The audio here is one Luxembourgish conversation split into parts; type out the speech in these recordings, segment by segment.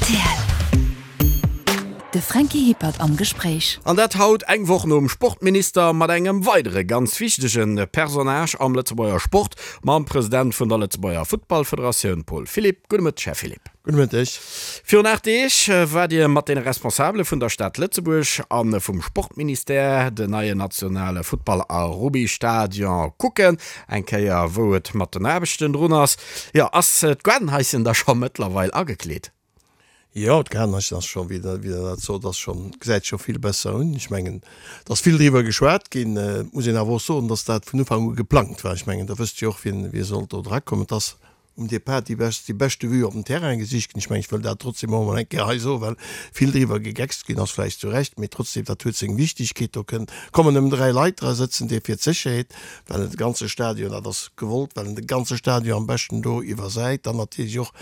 Rtl. De Franky Hippert am Gespréich. An dat haut, eng Woch nom Sportminister, mat engem weidere ganz wichtege Personnage am Lëtzebuerger Sport, mam President vun der Lëtzebuerger Futtballfederatioun, Paul Philipp. Gudde Mëtteg, Här Philipp. Gudde Mëtteg. Virun 8 Deeg waart Dir mat deene Responsabele vun der Stad Lëtzebuerg a vum Sportministère den neien nationale Futtball a Rubbystadion kucken. Eng Kéier wou et mat den Aarbechten drun ass. Jo, ass d'Gaardenhaischen da scho mëttlerweil agekleet? Jo, d'Gaardenhaischen ass scho, wéi Der dat sot, ass scho, gesäit scho vill besser un. Ech mengen, et ass vill driwwer geschwat ginn. Et muss een awer och soen, dass dat vun Ufank u geplangt war. Ech mengen, Der wësst jo och, wien, wie sollt do drakommen. Et ass um Depart déi best, déi beschte Vue op den Terrain gesicht ginn. Ech mengen, ech wëll dat trotzdem och emol eng Kéier hei soen, well vill driwwer gegeckst ginn ass, vläicht zu Recht, mee trotzdem, dat huet seng Wichtigkeet. Do kënn, kommen nëmmen 3 Leit dra sëtzen, dee fir d'Sécherheet, well en de ganze Stadion, dat ass gewollt, well en de ganze Stadion am beschten do iwwersäit, dann natierlech och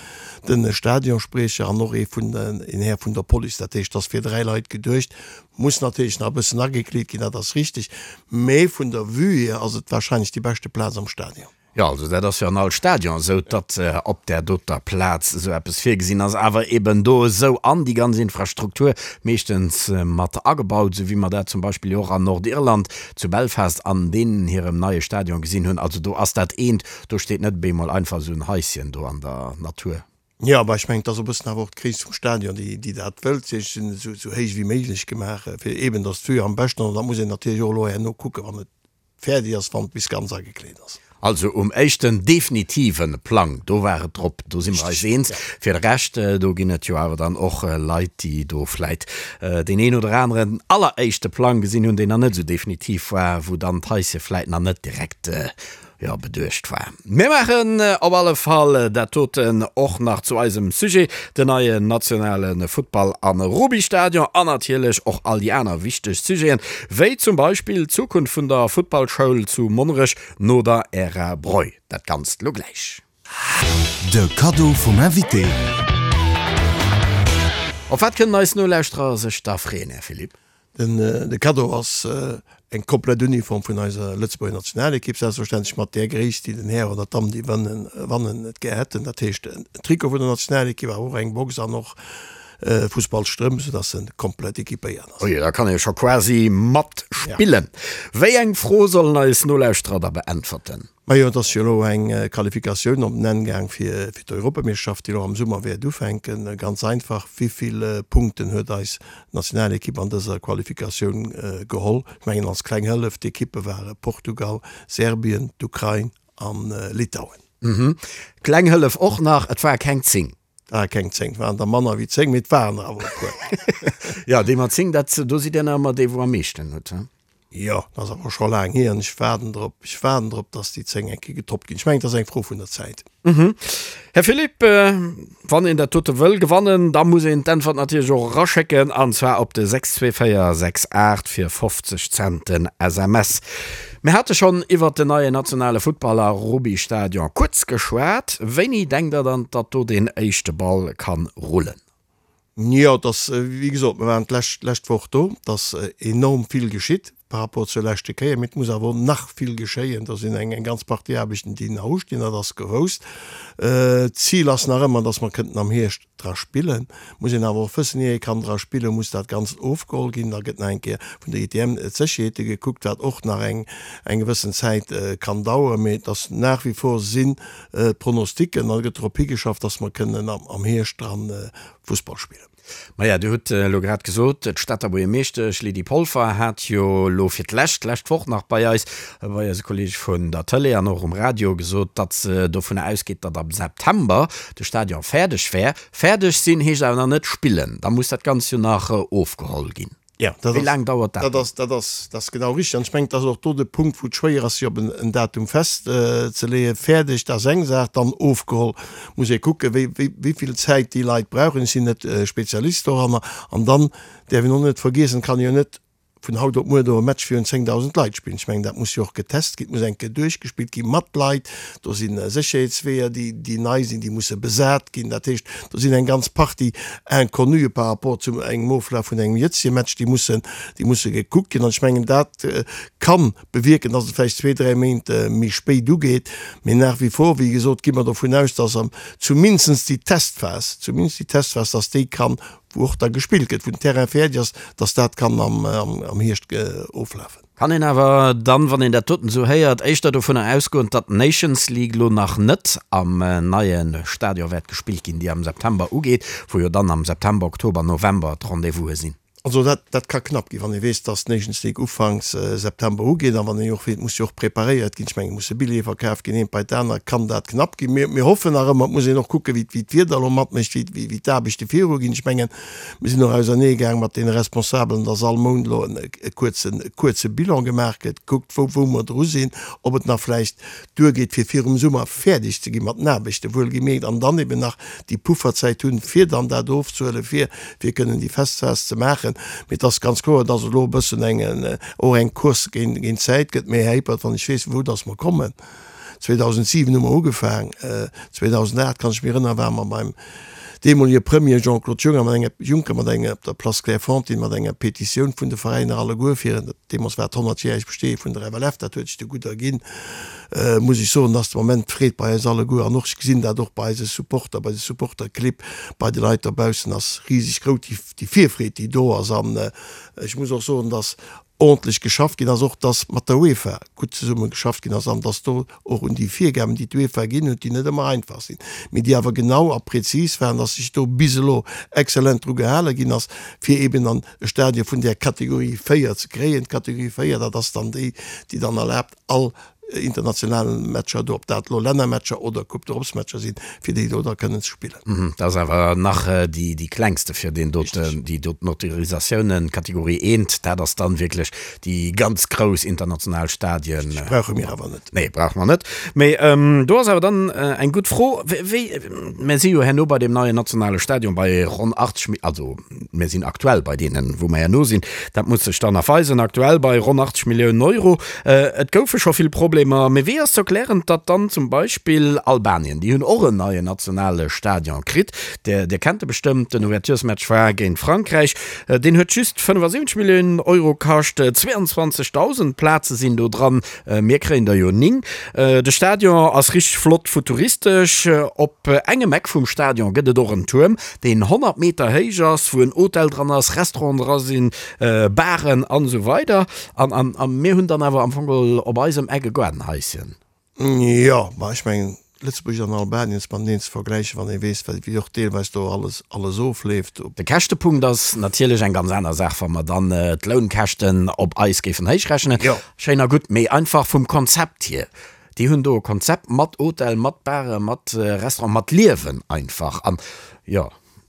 de Stadionspriecher an och ee vun, een Här vun der Police. Dat heescht, et ass fir 3 Leit geduecht, muss natierlech nach e bëssen agekleet ginn, dat ass richtig, mee vun der Vue hier ass et wahrscheinlech déi beschte Plaz am Stadion. Jo, also dat ass jo an all Stadion esou, datt op där doter Plaz esou eppes virgesinn ass, awer eben do esou an déi ganz Infrastruktur meeschtens mat agebaut, esou wéi mer dat zum Beispill jo och an Nordirland zu Belfast an deenen hirem neie Stadion gesinn hunn. Also do ass dat eent, do steet net op eemol einfach esou en Haischen do an der Natur. Jo, bah ech mengen, et ass e bëssen awer och d'Gréisst vum Stadion, déi, déi dat wëllt. Si sinn esou, esou héich wéi méiglech gemaach, fir eben, datt d'Vue am beschten, an dat muss een natierlech och elo herno kucken, wann et Fäerdeg ass, wann et bis ganz agekleet ass. Also um éischten definitive Plang, do war et drop, do si mer eis eens. Fir de Rescht, do ginn et jo awer dann och Leit, déi do vläit deen een oder aneren alleréischte Plang gesinn hunn, deen nach net esou definitiv war, wou dann d'Haische vläit nach net direkt jo, beduecht war. Mir maachen op alle Fall dat doten och nach zu eisem Sujet, den neien nationale Futtball a Rubbystadion an natierlech och all déi aner wichteg Sujeten, wéi zum Beispill d'Zukunft vun der Futtballschoul zu Monnerech no der Ära Breu. Dat Ganzt lo gläich. De Kaddo vum Invité. Op wat kënnen eis Nolauschterer sech da freeën, Här Philipp? De Kaddo ass eng komplett Uniform vun eiser Lëtzebuerger Nationalekipp, selbstverständlech mat där Gréisst, déi den Här oder d'Damm, déi wannen, et gär hätten. Dat heescht en Trikot vun der Nationalekipp, awer och eng Box an och Fussballstrëmp, soudass en komplett equipéiert ass. Oje, da kann ee scho quasi matspillen. Wéi eng Fro sollen eis Nolauschterer da beäntwerten? Majo, et ass jo elo eng Qualifikatioun op den Enn gaang fir d'Europameeschterschaft, déi elo am Summer wäert ufänken. Ganz einfach, Wéi vill Punkten huet eis Nationalekipp an dëser Qualifikatioun geholl? Ech mengen als kleng Hëllef, d'Ekippe ware Portugal, Serbien, d'Ukrain a Litauen. Kleng Hëllef och nach, et ware keng 10. Et ware keng 10, et waren der manner wéi 10, mee et waren der awer e puer. Jo, déi mat 10, dat, do sidd Dir nach ëmmer dee wou am meeschten huet, he? Jo, dat ass awer scho laang hier an ech waarden drop, ech waarden drop, dass déi 10 eng Kéier getoppt ginn. Ech mengen, et ass eng Fro vun der Zäit. Här Philipp, wann een dat dote wëll gewannen, da muss een d'Äntwert natierlech och eraschécken, an zwar op de 62468 fir 50 Cent den SMS. Mir hate schonn iwwert den neien nationale Futtball a Rubbystadion kuerz geschwat. Wéini denkt Der dann, datt do deen éischte Ball kann rullen? Jo, et ass, wéi gesot, mir waren d'lescht, d'lescht Woch do, et ass enorm vill geschitt par rapport zur leschte Kéier, mee et muss awer och nach vill geschéien. Do sinn eng, eng ganz Partie Aarbechten, déi nach ustinn, dat ass gewousst. D'Zil ass nach ëmmer, datt mer kënnten am Hierscht dra spillen. Muss een awer och wëssen, ier ee kann dra spillen, muss dat Ganzt ofgeholl ginn. Da gëtt nach eng Kéier vun der ITM d'Sécherheete gekuckt, wat och nach eng, eng gewëssen Zäit kann daueren. Mee et ass nach wie vor sinn d'Pronosticken an et gëtt drop higeschafft, dass mer kënnen am Hierscht dran Fussball spillen. Maja, Dir hutt elo grad gesot, d'Stater Buergermeeschtesch Lydie Polfer hat jo elo fir d'lescht, d'lescht Woch nach bei eis, bei eise Kolleege vun der Tëlee an och um Radio gesot, datt se dovunner ausgeet, datt am September de Stadion fäerdeg wär. Fäerdeg sinn heescht awer nach net spillen, da muss dat Ganzt jo nach ofgeholl ginn. Ja, dat Wéi ass, laang dauert dat dat dann? ass, dat ass, dat ass genau richtig. An ech mengen, et ass och do de Punkt, wou et schwéier ass, sech op en, en Datum festzeleeën. Fäerdeg, dat ass eng Saach, dann ofgeholl, muss ee kucken, wéi, wéi, wéi vill Zäit déi Leit brauchen. Ech sinn net Spezialist doranner. An dann däerf een och net vergiessen, et kann ee jo net. vun haut op muer do e Match virun 10.000 Leit spillen. Ech mengen, dat muss jo och getest ginn, et muss eng Kéier duerchgespillt gi mat Leit. Do si Sécherheetsweeër, déi, déi nei sinn, déi musse besat ginn. Dat heescht, do sinn eng ganz Partie Inconnuë par rapport zu engem Oflaf vun engem jëtzege Match, déi mussen, déi musse gekuckt ginn. An ech mengen, dat kann bewierken, dass et vläicht zwee, dräi Méint méi spéit ugeet. Mee nach wie vor, wéi gesot, gi mer dovun aus, dass am zumindest déi Testphas, zumindest déi Testphas, dass déi kann wou och da gespillt gëtt, wou den Terrain fäerdeg ass, dass dat kann am Hierscht oflafen. Kann een awer dann, wann een dat doten esou héiert, éischter dovunner ausgoen, datt d'Nations League lo nach net am neie Stadion wäert gespillt ginn, déi am September ugeet, wou jo dann am September, Oktober, November d'Rendez-vouse sinn? Also dat, dat ka knapp ginn, wann ee weess, dass d'Nations League ufanks September ugeet a wann een och weess, et muss jo och preparéiert ginn, ech mengen, et musse Billjeeë verkaf ginn, eent bei d'anert, kann dat knapp ginn. Mir, mir hoffen nach ëmmer, et muss een och kucken, wéi, wéi d'Wieder elo matmécht, wéi, wéi, wéi d'Aarbechte viruginn. Ech mengen, mir sinn och auserneegaang mat deene Responsabelen, dass all Mount elo en, e kuerzen, e kuerze Bilan gemaach gëtt, gekuckt, wou, wou mer dru sinn, ob et nach vläicht duergeet, fir virum Summer fäerdeg ze gi mat den Aarbechten, wuelgemierkt, an dann eben nach déi Pufferzäit hunn, fir dann dat ofzehuelen, fir fir kënnen déi Festphas ze maachen. Mee et ass ganz kloer, dass et elo e bëssen eng, och eng Course géint géint d'Zäit gëtt. Mee, Här Hippert, wann ech weess, vu wou dass mer kommen, 2007 hu mer ugefaang, 2008, kann ech mech erënnern, ware mer beim deemolege Premier Jean-Claude Juncker mat enger, Juncker mat enger, op der Place Clairefontaine mat enger Petitioun vun de Veräiner alleguer fir, deemools war et d'honnertjäreg Besteeë vun der FLF, dat huet sech du gutt erginn, muss ech soen, dass de Moment d'Freed bei eis alleguer, an och ech gesinn dat och bei eise Supporter, bei de Supporterclibb, bei de Leit dobaussen ass riseg grouss, déi, déi Virfreed, déi do ass. An ech muss och soen, dass ordentlech geschafft ginn ass, och dass mat der UEFA gutt zesumme geschafft ginn ass an dass do och un déi Virgaben, déi d'UEFA ginn huet, déi net ëmmer einfach sinn, mee déi awer genau a prezis waren, dass sech do bis elo exzellent dru gehale ginn ass, fir eben an e Stadion vun där Kategorie 4 ze kréien. D'Kategorie 4, dat ass dann déi, déi dann erlaabt, all internationale Matcher do, ob dat elo Lännermatcher oder Coupe d'Europe-Matcher sinn, fir déi do da kënnen ze spillen. Dat ass awer nach déi klengste fir deen doten, déi doten Autorisatiounen, Kategorie eent, dat ass dann wierklech déi ganz grouss international Stadien. Déi brauche mir awer net. Nee, brauche mer net. Mee do ass awer dann eng gutt Fro, wéi, mir si jo herno bei deem neien nationale Stadion bei ronn 80, also mir sinn aktuell bei deenen, wou mer herno sinn, dat muss sech dann nach weisen, aktuell bei ronn 80 Milliounen Euro. Et goufe scho vill Problemer, mee wéi ass ze erklären, datt dann zum Beispill Albanien, déi hunn och en neien nationale Stadion kritt, Dir, Dir kennt e bestëmmt, den Ouverturesmatch war géint Frankräich, deen huet just 75 Milliounen Euro kascht, 22.000 Plaze sinn do dran, mir kréien der jo 9. De Stadion ass richteg flott futuristesch, op engem Eck vum Stadion gëtt et och en Tuerm, deen 100 Meter héich ass, wou en Hotel dran ass, Restauranten dra sinn, Baren an esou weider. An, an, a mir hunn dann awer am Fong geholl op eisem Eck e Gaardenhaischen. Jo, ma ech mengen, Lëtzebuerg an Albanien ze mateneen ze vergläichen, wann ee weess, wéi och deelweis do alles, alles ofleeft. De Käschtepunkt ass natierlech eng ganz aner Saach, wa mer dann d'Lounkäschten op eis géifen héichrechnen. Jo. Schéin a gutt, mee einfach vum Konzept hier. Déi hunn do e Konzept mat Hotel, mat Bare, mat Restaurant, mat Liewen einfach. An jo,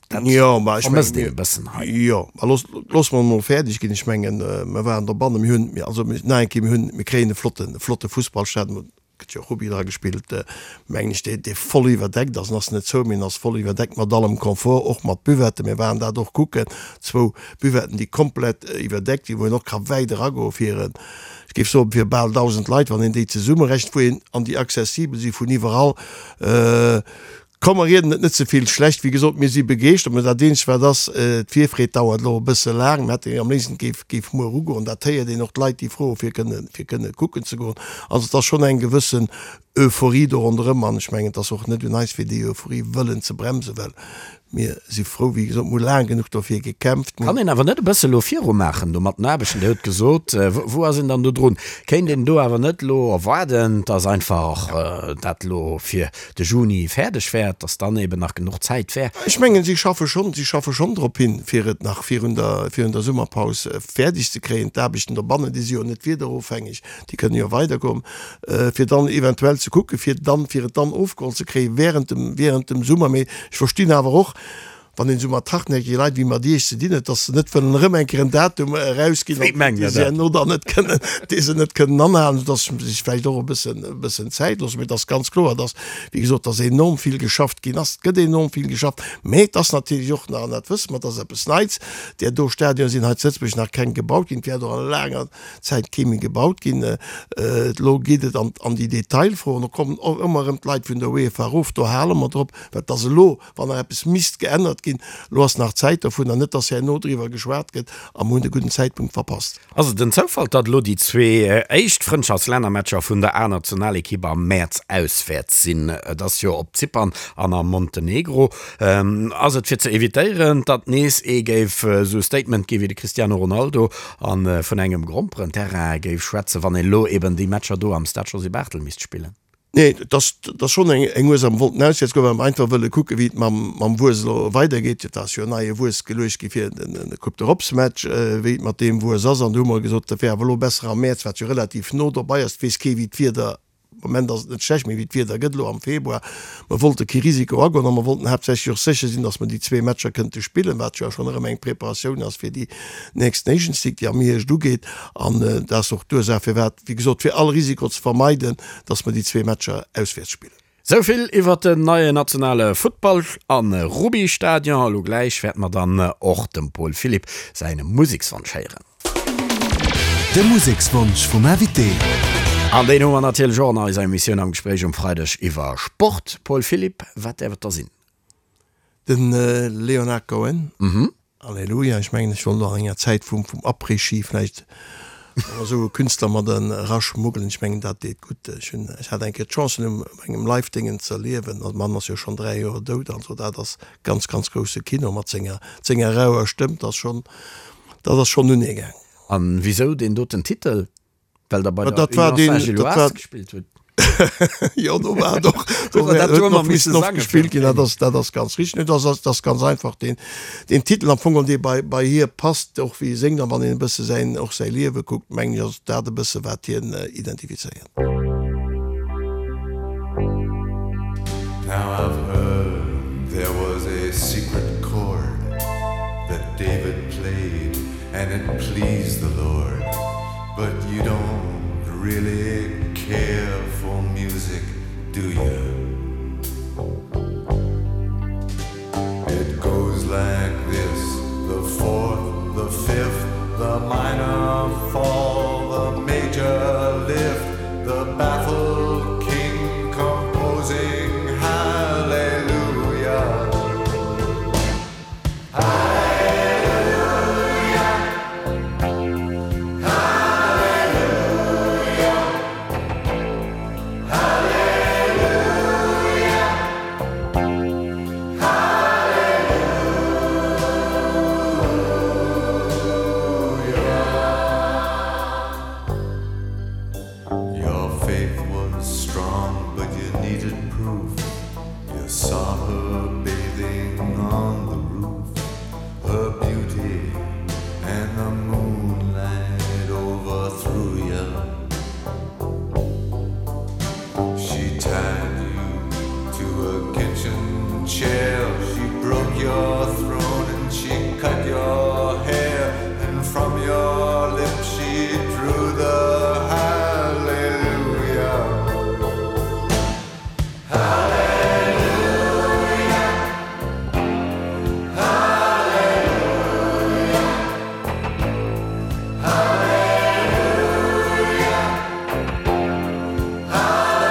dat Jo, ma ech vermësst mengen, een e bëssen hei. Jo, ma looss, looss mer emol fäerdeg ginn. Ech mengen, mer waren dobannen, mir hunn, also nach eng Kéier, mir hunn, mir kréien e flotten, e flotte Fussballstadion, et gëtt jo och Rugby dra gespillt, mengen ech, dee, dee voll iwwerdeckt ass. En ass net zou, mee en ass voll iwwerdeckt mat allem Confort, och mat Buvetten. Mir waren dat och kucken, zwou Buvetten, déi komplett iwwerdeckt sinn, wou een och ka wäit eragoen, fir en, ech géif soen, fir bal 1.000 Leit, wann een déi zesummerechent, wou een, an déi accessibel si vun iwwerall. Komm, mer rieden et net ze vill schlecht. Wéi gesot, mir si begeeschtert. Mä dat eenzegt wat ass, d'Virfreed dauert elo e bësse laang. Mir hätte am léifsten, et géif, géif muer ugoen. Dat héiert een och, d'Leit, déi froe fir kënne, fir kënne kucken ze goen. Also et ass schonn eng gewëssen Euphorie do ronderëm. An ech mengen, et ass och net un eis, fir déi Euphorie wëllen ze bremsen, well Mir si frou, wéi gesot, mir hu laang genuch dofir gekämpft. Kann een awer net e bësse lo viru maachen do mat den Aarbechten? Dir hutt gesot, wou ass een dann do drun? Kéint een do awer net elo erwaarden, dass einfach dat elo fir de Juni fäerdeg wär, dass dann eben nach genuch Zäit wär? Ech mengen, si schaffe schonn, si schaffe schonn drop hin, fir et nach virun der, virun der Summerpaus fäerdeg ze kréien. D'Aarbechten dobannen, déi si jo net wiederofhängeg, déi kënnen jo weidergoen, fir dann eventuell ze kucken, fir dann, fir et dann ofgeholl ze kréie während dem, während dem Summer. Mee ech verstinn awer och. Wann een esou mat hartnäckege Leit wéi mat Iech ze dinn huet, dass se net wëllen erëm eng Kéier en Datum erausginn, Wéi mengt dee Der se dat? herno dann net kënnen, dee se net kënnen anhalen, soudass se sech vläicht och e bëssen, e bëssen Zäit loossen. Mee et ass ganz kloer, dass, wéi gesot, dass enorm vill geschafft ginn ass. Et gëtt enorm vill geschafft, mee et ass natierlech och nach, an dat wësse mer, et ass eppes Neits, där do Stadionen sinn hei zu Lëtzebuerg nach keng gebaut ginn, et wäert och a laanger Zäit kee méi gebaut ginn. Elo geet et an, an déi Detailfroen. Do kommen och ëmmer erëm d'Leit vun der UEFA erof, do hale mer drop, well et ass elo, Wann nach eppes misst geännert ginn, elo ass nach Zäit dovunner, net dass herno driwwer geschwat gëtt a mer hunn de gudden Zäitpunkt verpasst. Ass et en Zoufall, datt elo déi zwee éischt Frëndschaftslännermatcher vun der A-Nationalekipp am Mäerz auswäerts sinn? Et ass jo op Zypern an a Montenegro. Ass et fir ze evitéieren, datt nees ee géif esou e Statement gi wéi de Cristiano Ronaldo a vun engem Gromperenterrain géif schwätzen, wann een elo eben déi Matcher do am Stade Josy Barthel misst spillen? Nee, et ass, et ass schonn eng, eng Ursaach. Mer wollten auswäerts goen, well mer einfach wëlle kucken, wéi et mam, mam Wues elo weidergeet. Et ass jo en neie Wues geluecht gi fir den, den Coupe d'Europe-Match, wéi et mat deem Wues ass. An do hu mer gesot, dat wär awer elo besser am Mäerz, wat jo relativ no dobei ass. Et weess kee wéi d'Wieder, am Moment ass et net schlecht, mee wéi d'Wieder gëtt elo am Februar. Mer wollte kee Risiko agoen a mer wollten haaptsächlech och sécher sinn, datt mer déi zwee Matcher kënnte spillen, wat jo schonn erëm eng Preparatioun ass fir déi nächst Nations League, déi am Hierscht ugeet. An dat ass och d'Ursaach, firwat, wéi gesot, fir all Risiko ze vermeiden, dass mer déi zwee Matcher auswäerts spillen. Sou vill iwwert den neien nationale Futtball a Rubbystadion. Elo gläich wäerte mer dann och dem Paul Philipp säin Musekswonsch héieren. De Musekswonsch vum Invité. An deen hu mer natierlech och an eiser Emissioun am Gespréich um Freideg iwwer Sport. Paul Philipp, wat däerf et da sinn? Den Leonard Cohen, Alleluia. Ech mengen, ech wollt och an enger Zäit vum Après-Ski vläicht och esou e Künstler mat eraschmuggelen. Ech mengen, dat deet gutt. Ech hunn, ech hat eng Kéier d'Chance, en um engem Live-Déngen ze erliewen. De Mann ass jo schonn 3 Joer dout. Also dat ass ganz, ganz grousse Kino mat senger, senger rauer Stëmm. Dat ass schonn, dat ass schonn unegaang. An wisou deen doten Titel? Well der bei der Union Saint-Gilloise gespillt hutt. Jo, do war et och, do Huet der dat do ëmmer huet misse missen oft sange gespillt fir ginn. Dat ass, dat ass ganz richteg. Dat ass, dat ass ganz einfach deen, deen Titel am Fong, dee bei, bei hir passt, och wéi e séngt. An wann een e bësse säin, och säi Liewe kuckt, mengen ech, ass dat e bësse wat hien identifizéiert. Now I've heard there was a secret chord that David played and it pleased the Lord But you don't really care for music, do you? It goes like this, the fourth, the fifth, the minor fall, the major lift, the baffled king composing hallelujah. Your faith was strong, but you needed proof. You saw her bathing on the roof, her beauty and the moonlight overthrew you. She tied you to a kitchen chair, she broke your throne and she cut your hair, and from your lips she drew the hallelujah. Hallelujah. Hallelujah. Hallelujah. Hallelujah.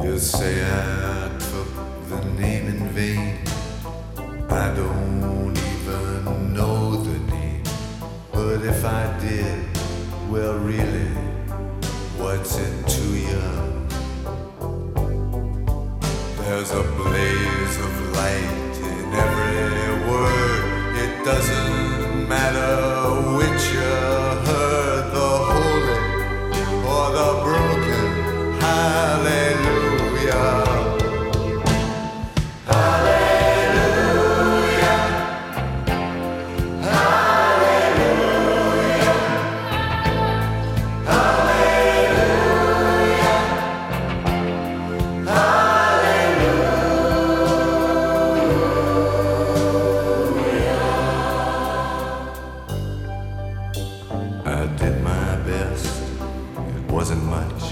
You say I took the name in vain. I don't even know the name. But if I did, well really, what's it to you? There's a blaze of light in every word. It doesn't matter which you heard, the holy or the broken. Hallelujah. Hallelujah. Hallelujah. Hallelujah. much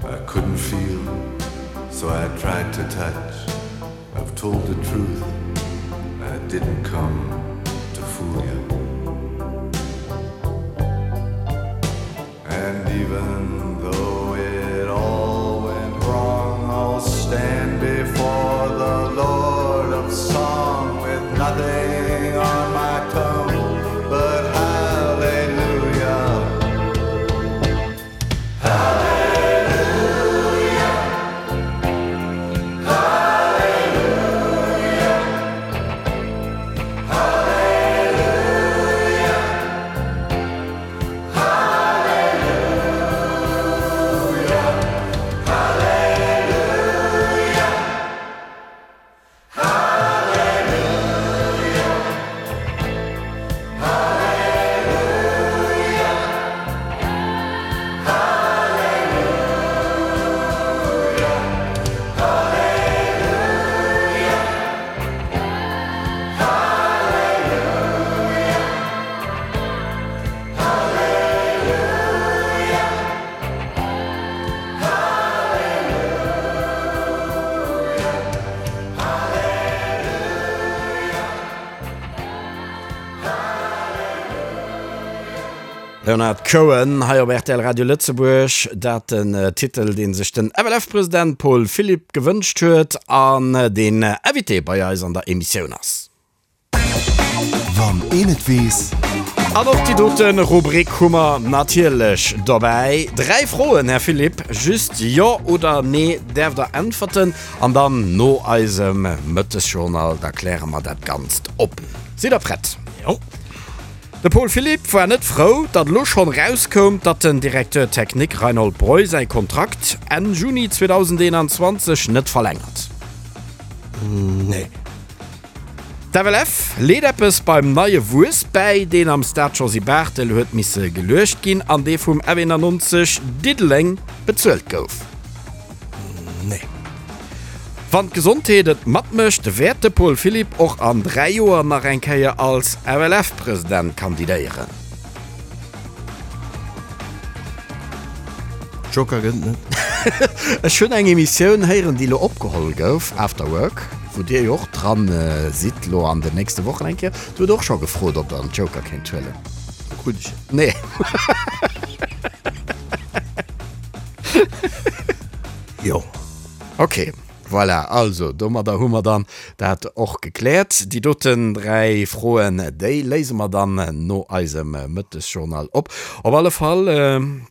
I couldn't feel, so I tried to touch. I've told the truth, I didn't come to fool you. And even though it all went wrong, I'll stand before the Lord of Song with nothing on my tongue but hallelujah. Hallelujah. Hallelujah. Hallelujah. Hallelujah. Hallelujah. Hallelujah. Hallelujah. Hallelujah. Hallelujah. Hallelujah. Hallelujah. Hallelujah. Leonard Cohen hei op rtl Radio Lëtzebuerg. Dat den Titel, dee sech den FLF-President Paul Philipp gewënscht huet an deen Invité bei eis an der Emissioun ass. Wann een et weess. An och déi dote Rubrik hu mer natierlech dobäi. Dräi Froen, Här Philipp, just Jo oder Nee däerft Der äntwerten. An dann no eisem Mëttesjournal, da kläre mer dat Ganzt op. Sidd Der prett? Jo. De Paul Philipp war net frou, datt elo schonn erauskoum, datt den Directeur technique Reinhold Breu säi Kontrakt Enn Juni 2021 net verlängert. Nee. D'FLF leet eppes beim neie Wuess bäi, deen am Stade Josy Barthel huet misse geluecht ginn an dee vum F91 Diddeleng bezuelt gouf. Nee. Wann d'Gesondheet et matmécht, wäert de Paul Philipp och an 3 Joer nach eng Kéier als FLF-President kandidéieren. Joker gëtt net. Ech hunn eng Emissioun héieren, déi elo opgeholl gouf, After Work, wou Dir jo och dran sidd elo an den nächste Wochen eng Kéier. Do huet och scho gefrot, ob Der en Joker kéint huelen. Krut ech en? Nee. Jo. Ok. Voilà, also domadder hu mer dann dat och gekläert. Déi doten 3 Froen, déi léise mer dann no eisem Mëttesjournal op. Op alle Fall,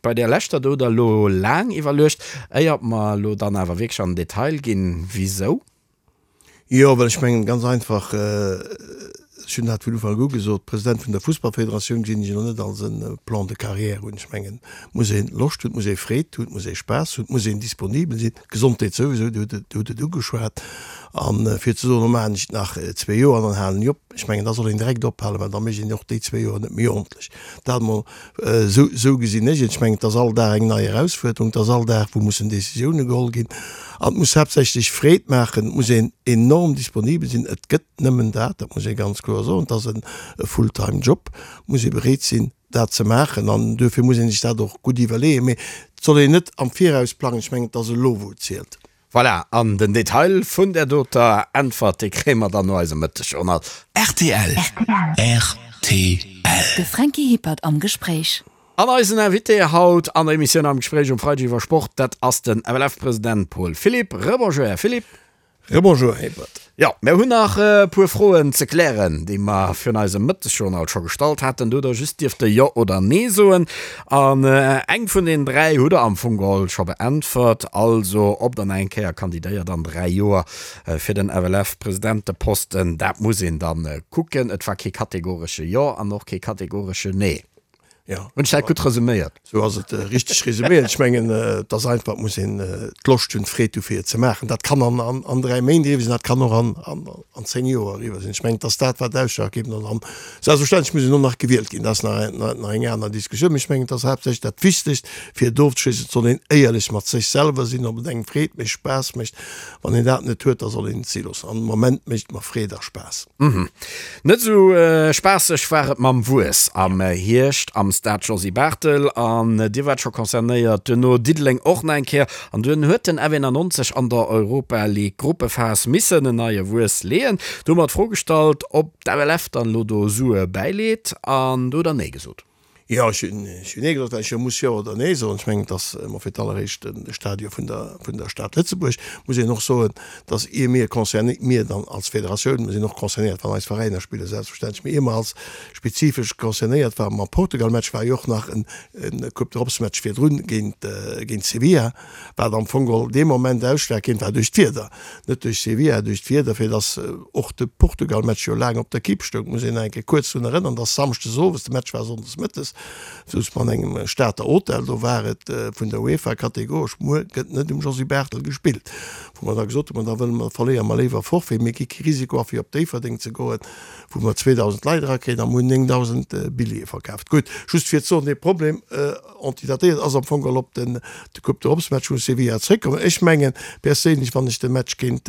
bei där leschter do hutt Der elo laang iwwerluecht, éiert mer elo dann awer wierklech an den Detail ginn. Wisou? Jo, well ech mengen, ganz einfach, ech hunn dat vun Ufank u gesot, President vun der Fussballfederatioun gesinn ech elo net als e Plan de carrière un. Ech mengen, et muss ee Loscht hunn, et muss ee Freed hunn, et muss ee Spaass hunn, et muss een disponibel sinn. D'Gesondheet souwisou, Dir hutt et ugeschwat. A fir ze soen, lo maachen ech et nach zwee Joer an dann halen ech op, ech mengen, da soll een direkt ophalen, well da mécht een och déi zwee Joer net méi ordentlech. Dat emol esou, esou gesinn ech et. Ech mengen, et ass all Dag eng nei Erausfuerderung, et ass all Dag, wou mussen Décisioune geholl ginn. An et muss haaptsächlech Freed maachen, et muss een enorm disponibel sinn. Et gëtt nëmmen dat, dat muss ee ganz kloer soen, et ass e Fulltime-Job, muss ee bereet sinn, dat ze maachen an duerfir muss ee sech dat och gutt iwwerleeën, mee et soll een net am Viraus plangen. Ech mengen, et ass elo wou et zielt. Voilà, an den Detail vun där doter Äntwert, dee kréie mer dann no eisem Mëttegjournal. Rtl, rtl. De Franky Hippert am Gespréich. An eisen Invité haut an der Emissioun Am Gespréich um Freideg iwwer Sport, dat ass den FLF-President Paul Philipp. Rebonjour, Här Philipp. Rebonjour, Här Hippert. Jo, mir hunn nach e puer Froen ze klären, déi mer virun eisem Mëttesjournal scho gestallt haten. Do hutt Der just dierfte Jo oder Nee soen. An eng vun den 3 hutt Der am Fong geholl scho beäntwert, also ob Der nach eng Kéier kandidéiert an 3 Joer fir den FLF-Presidenteposten, dat muss een da kucken. Et war kee kategoresche Jo an och kee kategoresche Nee. Ja. Hunn ech dat gutt resuméiert? Sou ass et richteg resuméiert. Ech mengen, et ass einfach, et muss een d'Loscht hunn, d'Freed hu fir et ze maachen. Dat kann an, an, an 3 Méint eriwwer sinn, dat kann och an, an, an 10 Joer eriwwer sinn. Ech mengen, et ass dat, wat ausschlaggebend ass. An selbstverständlech muss een och nach gewielt ginn, dat ass nach, nach, nach eng aner Diskussioun. Mee ech mengen, et ass haaptsächlech dat Wichtegst, fir et ofzeschléissen, et soll een éierlech mat sech selwer sinn, ob et engem Freed mécht, Spaass mécht. Wann een dat net huet, da soll een et si loossen. An am Moment mécht et mer Freed a Spaass. Net esou spaasseg war et mam Wuess am Hierscht am. Stade Josy Barthel an Dir waart scho concernéiert, duerno Diddeleng och nach eng Kéier an dunn huet den F91 an der Europa League Gruppephas missen en neie Wuess leeën. Do hu mer d'Fro gestallt, ob d'FLF dann elo do Sue bäileet an do hutt Der Nee gesot. Jo, ech hunn Nee gesot, well ech jo muss Jo oder Nee soen. Ech mengen, et ass emol fir d'alleréischt de Stadion vun der, vun der Stad Lëtzebuerg. Muss een och soen, dass ier mir concerné, mir dann als Federatioun, mir sinn och concernéiert, wann eis Veräiner spillen, selbstverständlech, mee ier mer als spezifesch concernéiert waren mam Portugal-Match, war jo och nach en Coupe d'Europe-Match virdrun géint, géint Sevilla, wat am Fong geholl dee Moment ausschlaggebend war duerch d'Wieder, net duerch Sevilla, duerch d'Wieder, fir dass och de Portugal-Match jo laang op der Kipp stoung. Muss een nach eng Kéier kuerz drun erënnern, dass samschdes owes, de Match war sonndes mëttes, souz mer an engem Stater Hotel, do war et vun der UEFA kategoresch, muer gëtt net um Josy Barthel gespillt, wou mer da gesot hunn, ma da wëlle mer, verléiere mer léiwer Forfait, mir gi kee Risiko a fir op Déifferdeng ze goen, wou mer 2.000 Leit erakréien a mer hunn 9.000 Billjeeë verkaaft. Gutt, just fir ze soen, dee Problem, Antidatéiert ass am Fong geholl op den de Coupe d'Europe Match vu Sevilla zréckkommen. Ech mengen perséinlech, wann ech de Match géint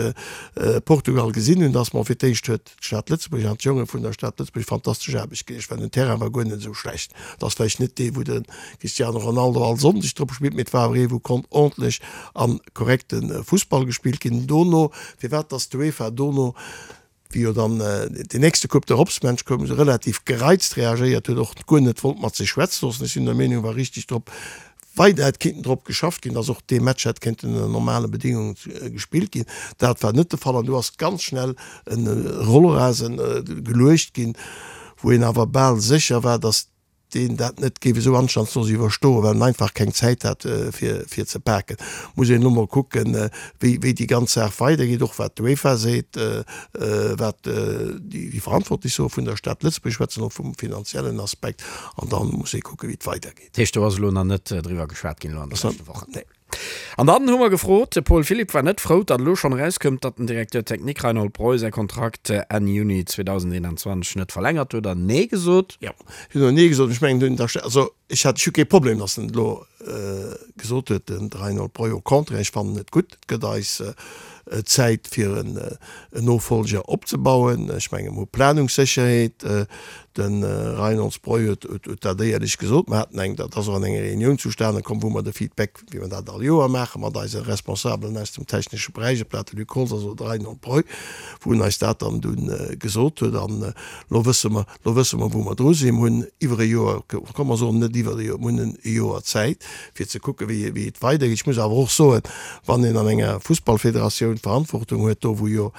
Portugal gesinn hunn, dass mer fir d'éischt huet d'Stad Lëtzebuerg an d'Jonge vun der Stad Lëtzebuerg fantastesch Aarbecht geleescht, well den Terrain war guer net esou schlecht. Et ass vläicht net dee wou de Cristiano Ronaldo all Sonndeg drop spillt, mee et war awer ee wou konnt ordentlech a korrekte Fussball gespillt ginn. Dono, firwat dass d'UEFA dono wéi jo dann deen nächste Coupe d'Europe-Match koum, esou relativ gereizt reagéiert huet, och guer net wollt mat sech schwätze loossen. Ech sinn der Meenung, wa richtig drop weider hätt kinnten drop geschafft ginn, dass och dee Match hätt kéinten ënner normale Bedingungen gespillt ginn. Dat war net de Fall an do ass ganz schnell e Rollrasen geluecht ginn, wou een awer bal sécher war, dass deen dat net géif esou anstandslos iwwerstoen, well en einfach keng Zäit hat fir fir ze paken. Muss een elo mol kucken, wéi wéi déi ganz Saach weidergeet, och wat d'UEFA seet, wat déi Verantwortlech soe vun der Stad Lëtzebuerg, schwätzen och vum finanziellen Aspekt, an da muss ee kucken, wéi et weidergeet. Dat heescht, do ass elo nach net driwwer geschwat ginn elo an de leschte Wochen? Nee. An dann hu mer gefrot, de Paul Philipp war net frou, datt elo schonn erauskoum, datt den Directeur technique Reinhold Breu säi Kontrakt Enn Juni 2021 net verlängert huet an Nee gesot. Jo, ech hunn och Nee gesot. Ech mengen, also ech hat, ech hu kee Problem, datt en et elo gesot huet, den Reinhold Breu. Au contraire, ech fannen et gutt. Et gëtt eis Zäit fir en Nofolger opzebauen. Ech mengen, mer hu Planungssécherheet. De Reinhold Breu huet dat éierlech gesot. Mer haten eng, dat ass och an enger Reunioun zustane komm, wou mer de Feedback, wéi mer dat all Joer maachen, mat eise Responsabelen aus dem technesche Beräich, ob dat de Luc Holtz ass oder de Reinhold Breu, wou en eis dat dann dunn gesot huet. An elo wësse mer, elo wësse mer, wou mer dru sinn. Mer hunn iwwer e Joer, komm mer soen net iwwer e Joer, mer hunn e Joer Zäit, fir ze kucken, wéi, wéi et weidergeet. Ech muss awer och soen, wann een an enger Fussballfederatioun d'Verantwortung huet, do wou jo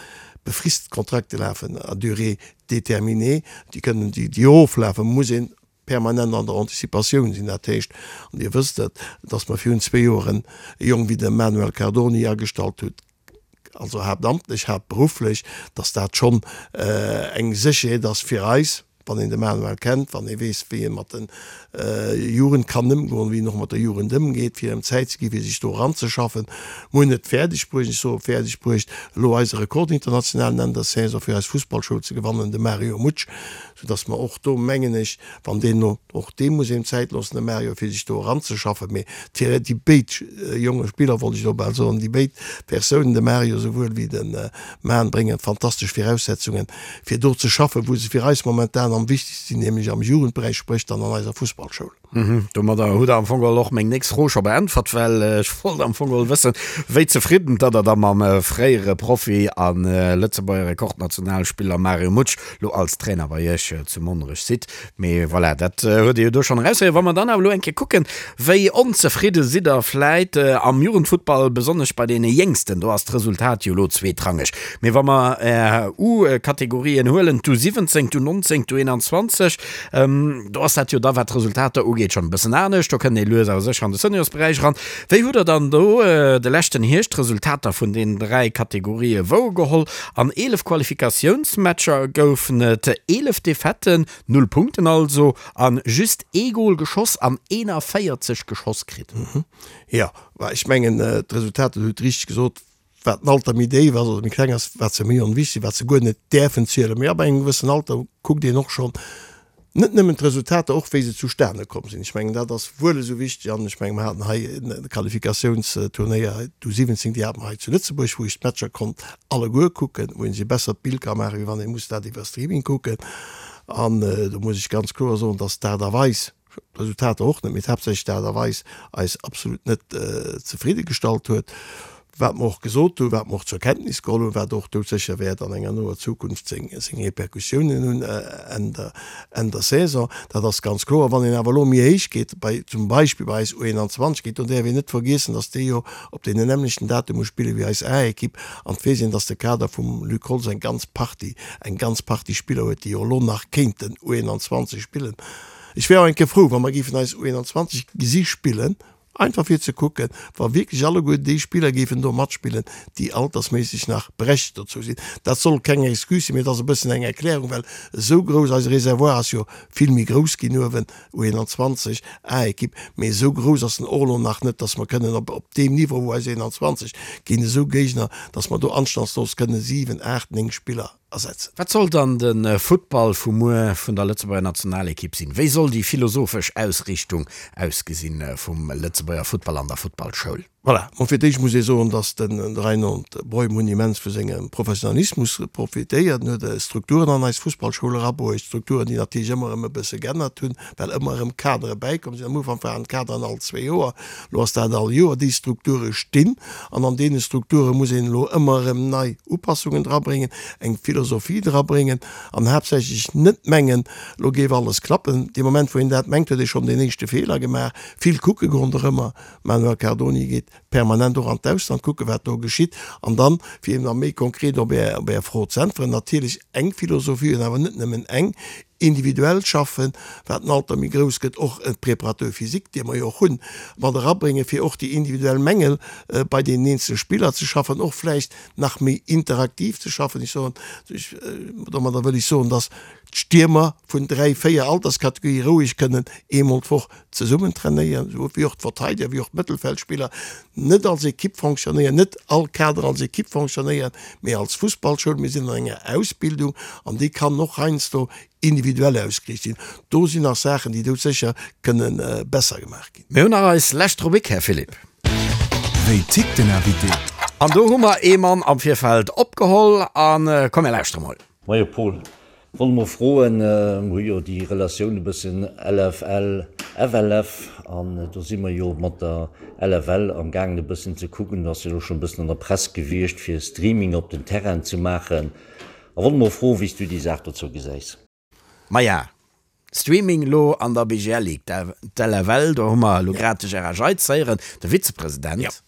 befrist Kontrakte lafen à durée déterminée, déi kënnen, déi, déi oflafen, muss een permanent an der Anticipatioun sinn. Dat heescht, an Dir wësst et, dass mer virun zwee Joren e Jong wéi de Manuel Cardoni agestallt hutt, also haaptamtlech, haaptberufflech, dass dat schonn eng Sécherheet ass fir eis, wann een de Manuel kennt, wann ee weess, wéi e mat de Jugend kann ëmgoen, wéi en och mat der Jugend ëmgeet, fir him Zäit ze ginn, fir sech do eranzeschaffen. Mer hunn et fäerdeg bruecht, ech soe fäerdeg bruecht, elo eise Rekord internationalen Enn der Saison fir eis Fussballschoul ze gewannen, de Mario Mutsch, soudass mer och do, mengen ech, wann deen elo, och deem muss een Zäit loossen, dem Mario, fir sech do eranzeschaffen, mee déi béid jonge Spiller, wollt ech elo bal soen, déi béid Persounen, de Mario souwuel wéi de Man, bréngen fantastesch Viraussetzungen, fir do ze schaffen, wou se fir eis momentan am wichtegste sinn, nämlech am Jugendberäich, spréch dann an eiser Fussballschoul. Domadder hutt Der am Fong geholl och meng nächst Fro scho beäntwert, well ech wollt am Fong geholl wëssen, wéi zefridden datt Der da mam fréiere Profi a Lëtzebuerger Rekordnationalspiller Mario Mutsch lo als Trainer bei Iech zu Monnerech sidd. Mee voilà, dat huet Dir jo do schonn eraushéieren. Wa mer dann awer elo eng Kéier kucken, wéi onzefridde sidd Der vläit am Jugendfuttball, besonnesch bei deene Jéngsten, do ass d'Resultat jo elo zweetrangeg. Mee wa mer Är U-Kategorien huelen, d'U17, d'U19, d'U21, do ass dat jo da, wat d'Resultater ugeet, schonn e bëssen anescht. Do kënnt ee lues awer sécher an de Seniorsberäich eran. Wéi hutt Der dann do de leschten Hierscht d'Resultater vun deenen 3 Kategorië wouergeholl? An 11 Qualifikatiounsmatcher goufen et 11 Defaitten, 0 Punkten also, a just ee Gol geschoss an 41 geschoss kritt. Jo, ech mengen, d'Resultater, Dir hutt richteg gesot, wat den Alter méi déif ass oder méi kleng ass, wat se méi onwichtig sinn, wat se guer net däerfen zielen. Mee ab engem gewëssen Alter kuckt een och schonn net nëmmen d'Resultater, och wéi se zustane komm sinn. Ech mengen, dat ass wuel esou wichteg. An ech mengen, mer haten hei e Qualifikatiounsturnéier, d'U17, déi hate mer hei zu Lëtzebuerg, wou ech d'Matcher konnt alleguer kucken, wou een sech e bessert Bild ka maachen, wéi wann ee muss dat iwwer Streaming kucken. An do muss ech ganz kloer soen, dass d'Aart a Weis, D'Resultater och net, mee haaptsächlech d'Aart a Weis eis absolut net zefridde gestallt huet. Wat mer och gesot hunn, wat mer och zur Kenntnis geholl hunn, wat och doudsécher wäert an enger noer Zukunft seng Repercussiounen hunn Enn der, Enn der Saison, dat ass ganz kloer. Wann een awer elo méi héich geet, bei, zum Beispill bei eis U21 geet, do däerf een net vergiessen, datt déi jo op deenen nämmlechten Datume spille wéi eis A-Ekipp an et weess een, datt de Kader vum Luc Holtz eng ganz Partie, eng ganz Partie Spiller huet, déi jo elo nach kéinten U21 spillen. Ech wär och eng Kéier frou, wa mer géifen eis U21 gesi spillen, einfach fir ze kucken, wa wierklech alleguer déi Spiller géifen do matspillen, déi altersméisseg nach berechtigt dozou sinn. Dat soll keng Excuse sinn, mee et ass e bëssen eng Erklärung, well esou grouss, eise Réservoir ass jo vill méi grouss ginn uewen, U21, A-Ekipp, mee esou grouss ass en och elo nach net, dass mer kënnen op op deem Niveau, wou eis 21 géint esou Géigner, dass mer do anstandslos kënnen 7, 8, 9 Spiller ersetzen. Wat soll dann de Futtball vu muer vun der Lëtzebuerger Nationalekipp sinn? Wéi soll déi philosophesch Ausriichtung ausgesinn vum Lëtzebuerger Futtball an der Futtballschoul? Voilà, bon fir d'éischt muss ee soen, datt de Reinhold Breum hunn immens vu sengem Professionalismus profitéiert. En huet Strukturen an eis Fussballschoul erabruecht, Strukturen, déi natierlech ëmmer erëm e bësse geännert hunn, well ëmmer erëm Kadere bäikomm sinn. Am Ufank waren d'Kaderen all zwee Joer, elo ass dat all Joer. Déi Strukture stinn an an deene Strukture muss een elo ëmmer erëm nei Upassungen drabréngen, eng Philosophie drabréngen an haaptsächlech net mengen, elo géif alles klappen. Dee Moment, wou een dat mengt, huet ee schonn deen éischte Feeler gemaach. Vill kucke ronderëmmer, Manuel Cardoni geet permanent och an d'Ausland kucken, wat do geschitt. An dann, fir eben nach méi konkret op Är, op Är Fro ze äntweren, natierlech eng Philosophie hunn, awer net nëmmen eng, individuell schaffen, wat den Alter méi grouss gëtt, och e Préparateur physique, dee mer jo och hunn, mat erabréngen, fir och déi individuell Mängel bei deenen eenzele Spiller ze schaffen, och vläicht nach méi interaktiv ze schaffen. Ech soen, ech, domadder wëll ech soen, dass d'Stiermer vun dräi, véier Alterskategorië roueg kënnen eemol d'Woch zesummen trainéieren, esou wéi och d'Verteideger, wéi och d'Mëttelfeldspiller, net als Ekipp fonctionnéieren, net all Kader als Ekipp fonctionnéieren, mee als Fussballschoul. Mir sinn an enger Ausbildung an déi kann och heiansdo individuell ausgeriicht sinn. Do sinn nach Saachen, déi doudsécher kënne besser gemaach ginn. Mir hunn nach eis lescht Rubrik, Här Philipp. Wéi tickt den Invité? An do hu mer ee Mann am Virfeld opgeholl a komm mir lauschtere mol. Moie Paul, wollt mol froen, mer hu jo déi Relatioun e bëssen LFL, FLF an do si mer jo mat der LFL am gaangen e bëssen ze kucken, ass jo elo schonn e bëssen an der Press gewiescht fir Streaming op den Terrainen ze maachen a wollt mol froen wéi s du déi Saach dozou gesäis. Maja, Streaming elo an der BGL Ligue, d'LFL, do hu mer elo grad de Gérard Jeitz héieren, de Vizepresident.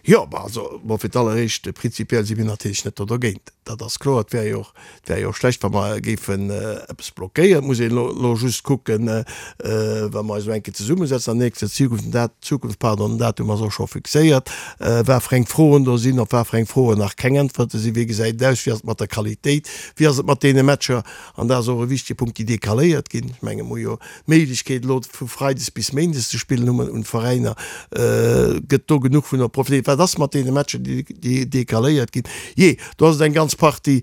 Jo, bah also, bon, fir d'alleréischt, prinzipiell si mir natierlech net do dergéint, dat ass kloer. Et wär jo och, et wär jo och schlecht, wa mer géifen eppes blockéieren. Et muss een elo, elo just kucken, wa mer eis elo eng Kéier zesummesetzen an nächster Zukunft, den Dat, Zukunft, pardon, den Datum ass och scho fixéiert, wat fir eng Froen do sinn, op wat fir eng Froen nach keng Äntwerte sinn, wéi gesäit et aus, wéi ass et mat der Qualitéit, wéi ass et mat deene Matcher, An dat ass och e wichtige Punkt, déi decaléiert ginn. Ech menge mer hu jo d'Méiglechkeet elo vu freides bis méindes ze spillen, hu mer un d'Veräiner, gëtt do genuch vun profitéiert? Wat ass mat deene Matcher, déi decaléiert ginn? Jee, do ass et eng ganz Partie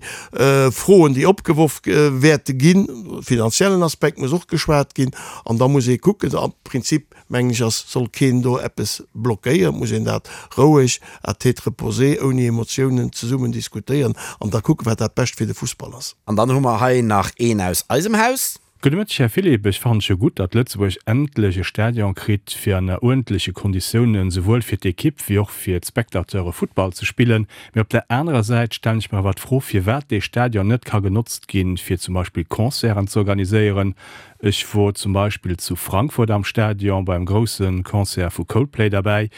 Froen, déi opgeworf wäerte ginn. Finanziellen Aspekt muss och geschwat ginn an da muss ee kucken. Am Prinzip mengen ech, ass, soll keen do eppes blockéieren, et muss een dat roueg à tête reposée, ouni Emotiounen zesummen diskutéieren an da kucken, wat dat Bescht fir de Fussball ass. An dann hu mer hei nach een aus eisem Haus. Gudde Mëtteg Här Philipp, ech fannen et jo gutt, datt Lëtzebuerg endlech e Stadion kritt fir ënner uerdentleche Konditiounen souwuel fir d'Ekipp wéi och fir d'Spectateure Futtball ze spillen. Mee op der anerer Säit stellen ech mer awer d'Fro firwat dee Stadion net ka genotzt ginn fir zum Beispill Concerten ze organiséieren. Ech wor zum Beispill zu Frankfurt am Stadion beim groussen Concert vu Coldplay derbäi.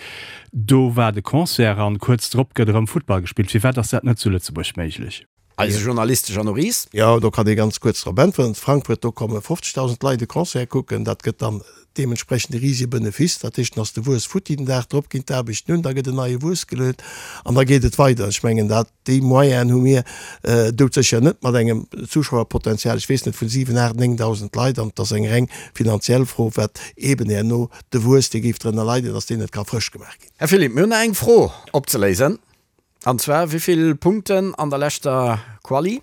Do war de Concert an kuerz drop gëtt erëm Futtball gespillt. Firwat ass dat net zu Lëtzebuerg méiglech? Eise Journalist Jeannot Ries. Jo, do kann ee ganz kuerz drop äntweren. Zu Frankfurt, do komme 50.000 Leit e Concert kucken. Dat gëtt dann deementsprechend e risege Benefice. Dat heescht, dann ass de Wuess futti. Den Dag drop ginn d'Aarbechten un, da gëtt en neie Wuess geluet an da geet et weider. Ech mengen, dat Déi Moyenen hu mir doudsécher net mat engem Zuschauerpotenzial, ech weess net, vun 7, 8, 9.000 Leit. An et ass eng reng finanziell Fro, wat eeben herno de Wuess, dee géif drënner leiden, datt deen net ka frësch gemaach ginn. Här Philipp, mir hunn nach eng Fro opzeléisen, an zwar, Wéi vill Punkten an der leschter Quali?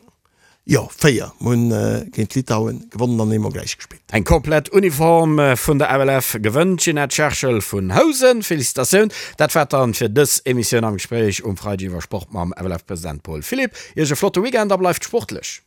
Jo, 4. Mir hunn géint Litauen gewonnen an eemol gläich gespillt. Eng komplett Uniform vun der FLF gewënnt d'Ginette Scherschel vun Housen. Felicitatioun! Dat war et dann fir dës Emissioun am Gespréich um Freideg iwwer Sport mam FLF-President Paul Philipp. Iech e flotte Weekend a bleift sportlech!